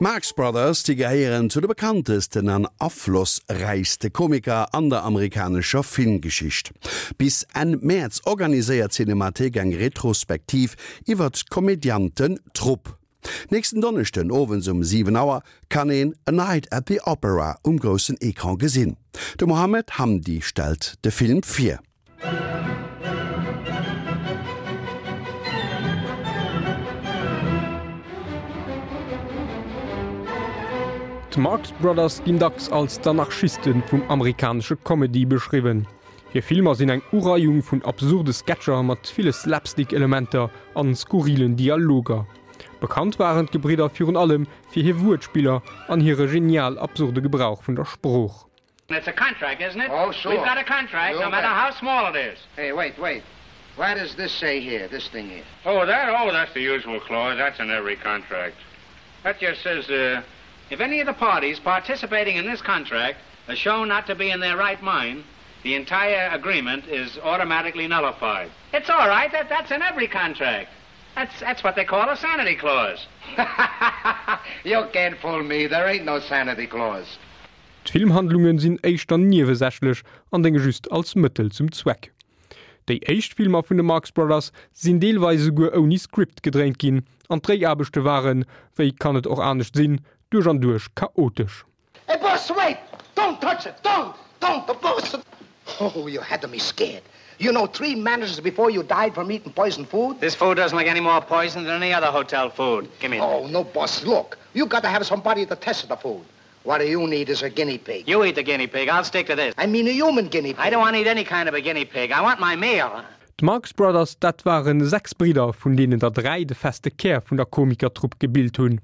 D'Marx Brothers, déi gehéieren zu de bekanntesten an aflossräichste Komiker an der amerikanescher Filmgeschicht. Bis Enn Mäerz organiséiert d'Cinemathéik eng Retrospektiv iwwert d'Komediantentrupp. Nächsten Donneschden owends um 7 Auer kann een A Night at the Opera um groussen Ecran gesinn. De Mohamed Hamdi stellt de Film vir. D'Marx Brothers ginn dacks als d'Anarchiste vum amerikanesche Comedy beschriwwen. Hir Filmer sinn eng Ureiung vun absurde Sketcher mat ville Slapstick-Elementer an skurrilen Dialoger. Bekannt waren d'Gebridder virun allem fir hir Wuertspiller an hire genial absurde Gebrauch vun der Sprooch. It's a contract, isn't it? Oh, sure. We've got a contract, you no matter how small it is. Hey, wait, wait. What does this say here, this thing here? Oh, that? Oh, that's the usual clause. That's in every contract. That just says, uh, if any of the parties participating in this contract are shown not to be in their right mind, the entire agreement is automatically nullified. It's all right. That, that's in every contract. That's, that's what they call a sanity clause. you can't fool me. There ain't no sanity clause. D'Filmhandlunge sinn éischter niewesächlech an dénge just als Mëttel zum Zweck. Déi éischt Filmer vun de Marx Brothers sinn deelweis esouguer ouni Script gedréint ginn an d'Dréiaarbechte waren, wéi kann et och anescht sinn, duerch an duerch chaotesch. Hey boss, wait! Don't touch it! Don't! Don't! The boss! Oh, you had me scared. You know, three managers before you died from eating poison food. This food doesn't look any more poison than any other hotel food. Give me Oh, no, boss, look. You got to have somebody to test the food. What you need is a guinea pig. You eat the guinea pig. I'll stick to this. I mean a human guinea pig. I don't want to eat any kind of a guinea pig. I want my meal. D'Marx Brothers, dat ware 6 Bridder, vun deenen der 3 de feste Kär vun der Komikertrupp gebilt hunn.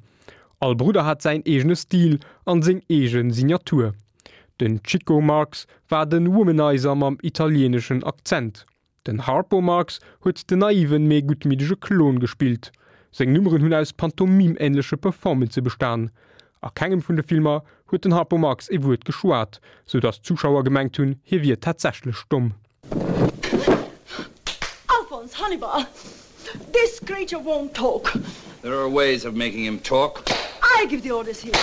All Brudder hat säin eegene Stil an seng eege Signatur. Den Chico Marx war de Womanizer mam italieeneschen Akzent. Den Harpo Marx huet den naiven, mee guttmiddege Klon gespillt. Seng Nummeren hunn aus pantomim-änleche Performancë bestan. A kengem vun de Filmer huet den Harpo Marx ee Wuert geschwat, sou datt d'Zuschauer gemengt hunn, hie wier tatsächlech domm. Alphonse Hannibal, this creature won't talk. There are ways of making him talk. I give the orders here.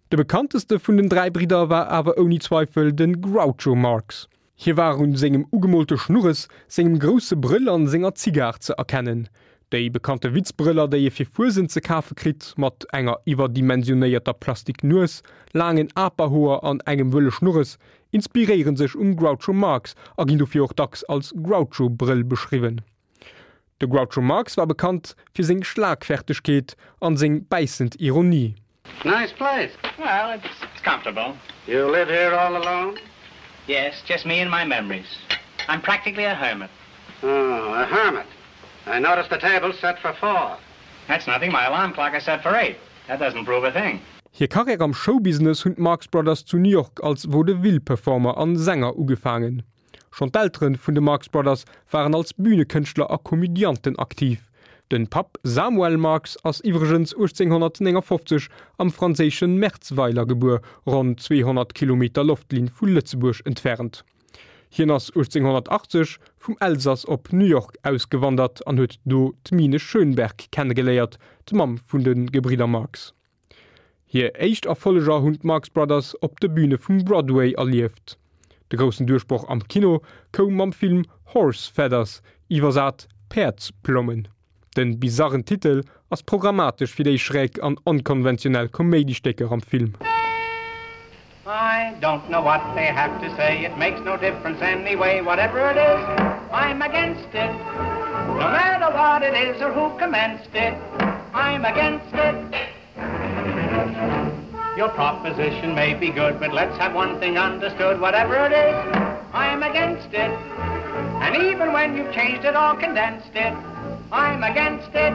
De bekannteste vun den 3 Bridder war awer ouni Zweifel de Groucho Marx. Hie war un sengem ugemoolte Schnurres, sengem grousse Brëll an senger Zigar ze erkennen. Déi bekannte Witzbrëller, déi ee fir Fuesent ze kafe kritt, mat enger iwwerdimensionéierter Plastik-Nues, laangen Aperhoer an engem wëlle Schnurres, inspiréiere sech um Groucho Marx a ginn dofir och dacks als Groucho-Brëll beschriwwen. De Groucho Marx war bekannt fir seng Schlagfertegkeet an seng bäissend Ironie. Nice place. Well, it's, it's comfortable. You live here all alone? Yes, just me and my memories. I'm practically a hermit. Oh, a hermit. I noticed the table set for four. That's nothing. My alarm clock is set for eight. That doesn't prove a thing. Hir Karriär am Showbusiness hunn d'Marx Brothers zu New York als Vaudeville-Performer an Sänger ugefaangen. Schonn d'Eltere vun de Marx Brothers waren als Bünekënschtler a Komödianten aktiv. Den Papp Samuel Marx ass iwwregens 1859 am franséische Merzweiler gebuer, ronn 200 Kilometer Loftlinn vu Lëtzebuerg entfernt. Hien ass 1880 vum Elsass op New York ausgewandert an huet do d'Mine Schönberg kennegeléiert, d'Mamm vun de Gebridder Marx. Hir éischt Erfolleger hunn d'Marx Brothers op de Büne vum Broadway erlieft. De groussen Duerchbroch am Kino koum mam Film Horse Feathers, iwwersat Päerdsplommen. De bizarren Titel ass programmatesch fir déi schräg an onkonventionell Koméidistécker am Film. I don't know what they have to say, it makes no difference anyway, whatever it is, I'm against it. No matter what it is or who commenced it, I'm against it. Your proposition may be good, but let's have one thing understood, whatever it is, I'm against it. And even when you've changed it or condensed it, I'm against it.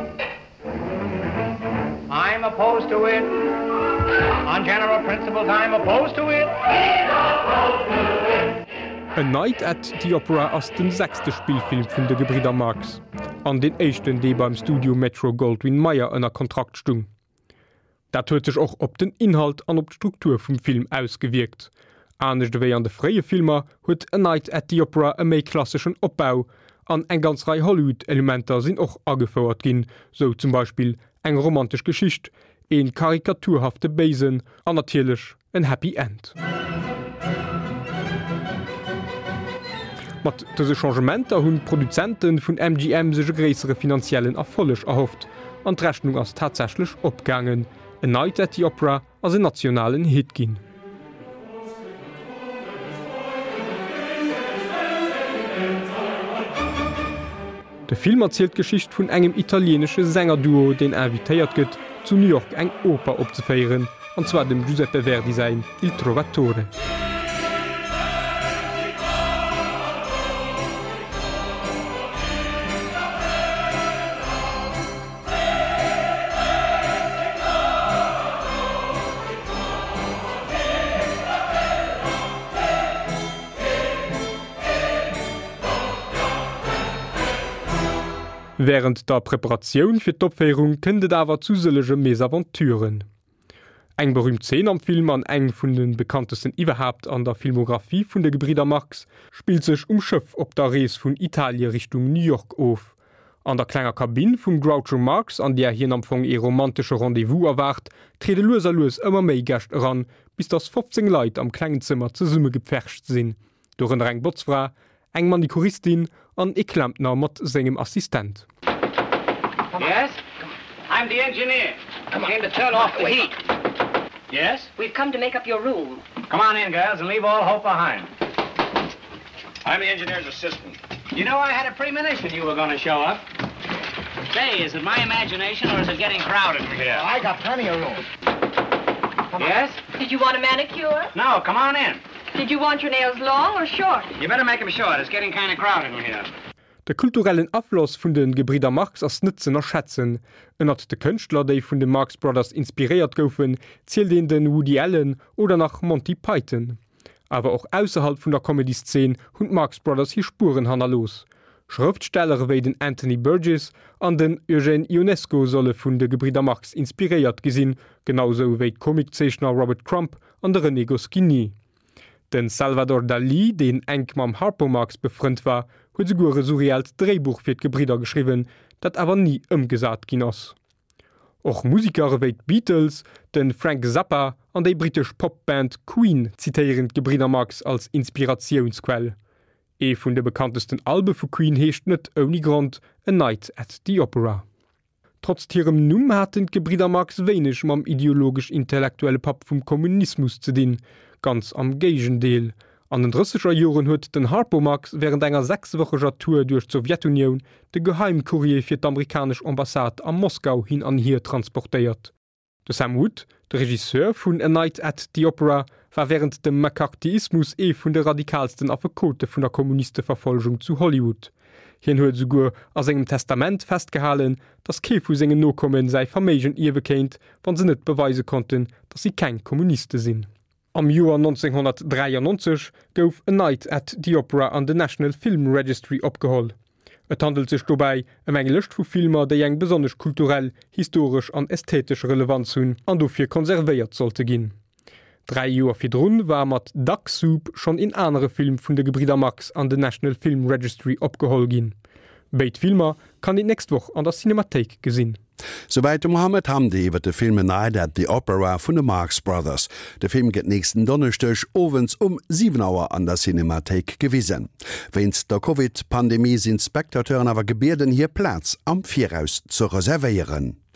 I'm opposed to it. On general principles, I'm opposed to it. Opposed to it. A Night at the Opera ass den sechste Spillfilm vun de Gebridder Marx an deen éischten, dee beim Studio Metro-Goldwyn-Mayer ënner Kontrakt stung. Dat huet sech och op den Inhalt an op d'Struktur vum Film ausgewierkt. Anescht ewéi an de fréie Filmer huet A Night at the Opera e méi klasseschen Opbau an eng ganz Rei Hollywood-Elementer sinn och agefouert ginn, sou zum Beispill eng romantesch Geschicht, Een karikaturhafte Béisen an natierlech en Happy End. Mat dëse Changementer hunn d'Produzente vun MGM sech e gréissere finanziellen Erfolleg erhofft, an d'Rechnung ass tatsächlech opgaangen, A Night at the Opera ass en nationalen Hit ginn. De Film erzielt d'Geschicht vun engem italieenesche Sängerduo, deen invitéiert gëtt, zu New York eng Oper opzeféieren, an zwar dem Giuseppe Verdi säin Il Trovatore. Wärend der Preparatioun fir d'Opféierung kënnt et awer zu sëllege Mesaventuren. Eng berüümt Zeen am Film an eng vun de bekanntesten iwwerhaapt an der Filmographie vun de Gebridder Marx spillt sech um Schëff op der Rees vun Italie Richtung New York of. An der klenger Kabinn vum Groucho Marx, an där hien am Fong ee romantesche Rendez-vous erwaart, triede lues a lues ëmmer méi Gäscht eran, bis dass 15 Leit am klengen Zëmmer zesummegepfercht sinn, dorënner eng Botzfra, eng Manikuristin an ee Klempner mat sengem Assistent. Yes? I'm the engineer. Came to turn off the heat. Yes? We've come to make up your room. Come on in, girls, and leave all hope behind. I'm the engineer's assistant. You know, I had a premonition you were going to show up. Say, is it my imagination or is it getting crowded in here? Oh, I got plenty of room. Yes? Did you want a manicure? No, come on in. Did you want your nails long or short? You better make them short. It's getting kind of crowded in here. De kulturellen Afloss vun de Gebridder Marx ass net z'ënnerschätzen. Ënnert de Kënschtler, déi vun de Marx Brothers inspiréiert goufen, zielt een de Woody Allen oder nach Monty Python. Awer och ausserhalb vun der Comedy-Szene hunn d'Marx Brothers hir Spueren hannerlooss. Schrëftsteller ewéi den Anthony Burgess an den Eugène Ionesco solle vun de Gebridder Marx inspiréiert gi sinn, genau sou wéi d'Comiczeechner Robert Crumb an de René Goscinny. De Salvador Dalí, deen enk mam Harpo Marx befrënnt war, huet esouguer e surrealt Dréibuch fir d'Gebridder geschriwwen, dat awer ni ëmgesat ginn ass. Och Museker ewéi d'Beatles, de Frank Zappa an déi brittesch Pop-Band Queen zitéieren d'Gebridder Marx als Inspiratiounsquell. Ee vun de bekanntesten Albe vu Queen heescht net ouni Grond A Night at the Opera. Trotzt hirem Numm haten d'Gebridder Marx wéineg mam ideologesch-intellektuelle Papp vum Kommunismus ze dinn, ganz am Géigendeel. An den drësseger Joren huet den Harpo Marx wärend enger sechswëcheger Tour duerch d'Sowjetunioun de Geheimcourrier fir d'amerikanesch Ambassade a Moskau hin an hier transportéiert. De Sam Wood, de Regisseur vun A Night at the Opera, war wärend dem McCarthyismus ee vun de radikaalsten Affekote vun der Kommunisteverfolgung zu Hollywood. Hien huet esouguer a sengem Testament festgehalen, datt kee vu sengen Nokomme säi Verméigen ierwe kéint, wa se net beweise konnten, datt si keng Kommuniste sinn. Am Joer 1993 gouf A Night at the Opera an den National Film Registry opgeholl. Et handelt sech dobäi ëm eng Lëscht vu Filmer, déi eng besonnesch kulturell, historesch an ästhetesch Relevanz hunn an dofir konservéiert sollte ginn. Dräi Joer virdrun war mat Duck Soup schonn een anere Film vun de Gebridder Marx an den National Film Registry opgeholl ginn. Béid Filmer kann een d'nächst Woch an der Cinemathéik gesinn. Souwäit de Mohamed Hamdi iwwer de Film A Night at the Opera vun de Marx Brothers. De Film gëtt nächsten Donneschdeg owends um 7 Auer an der Cinemathéik gewisen. Wéinst der Covid-Pandemie sinn d'Spectateuren awer gebieden, hir Plaz am Viraus ze reservéieren.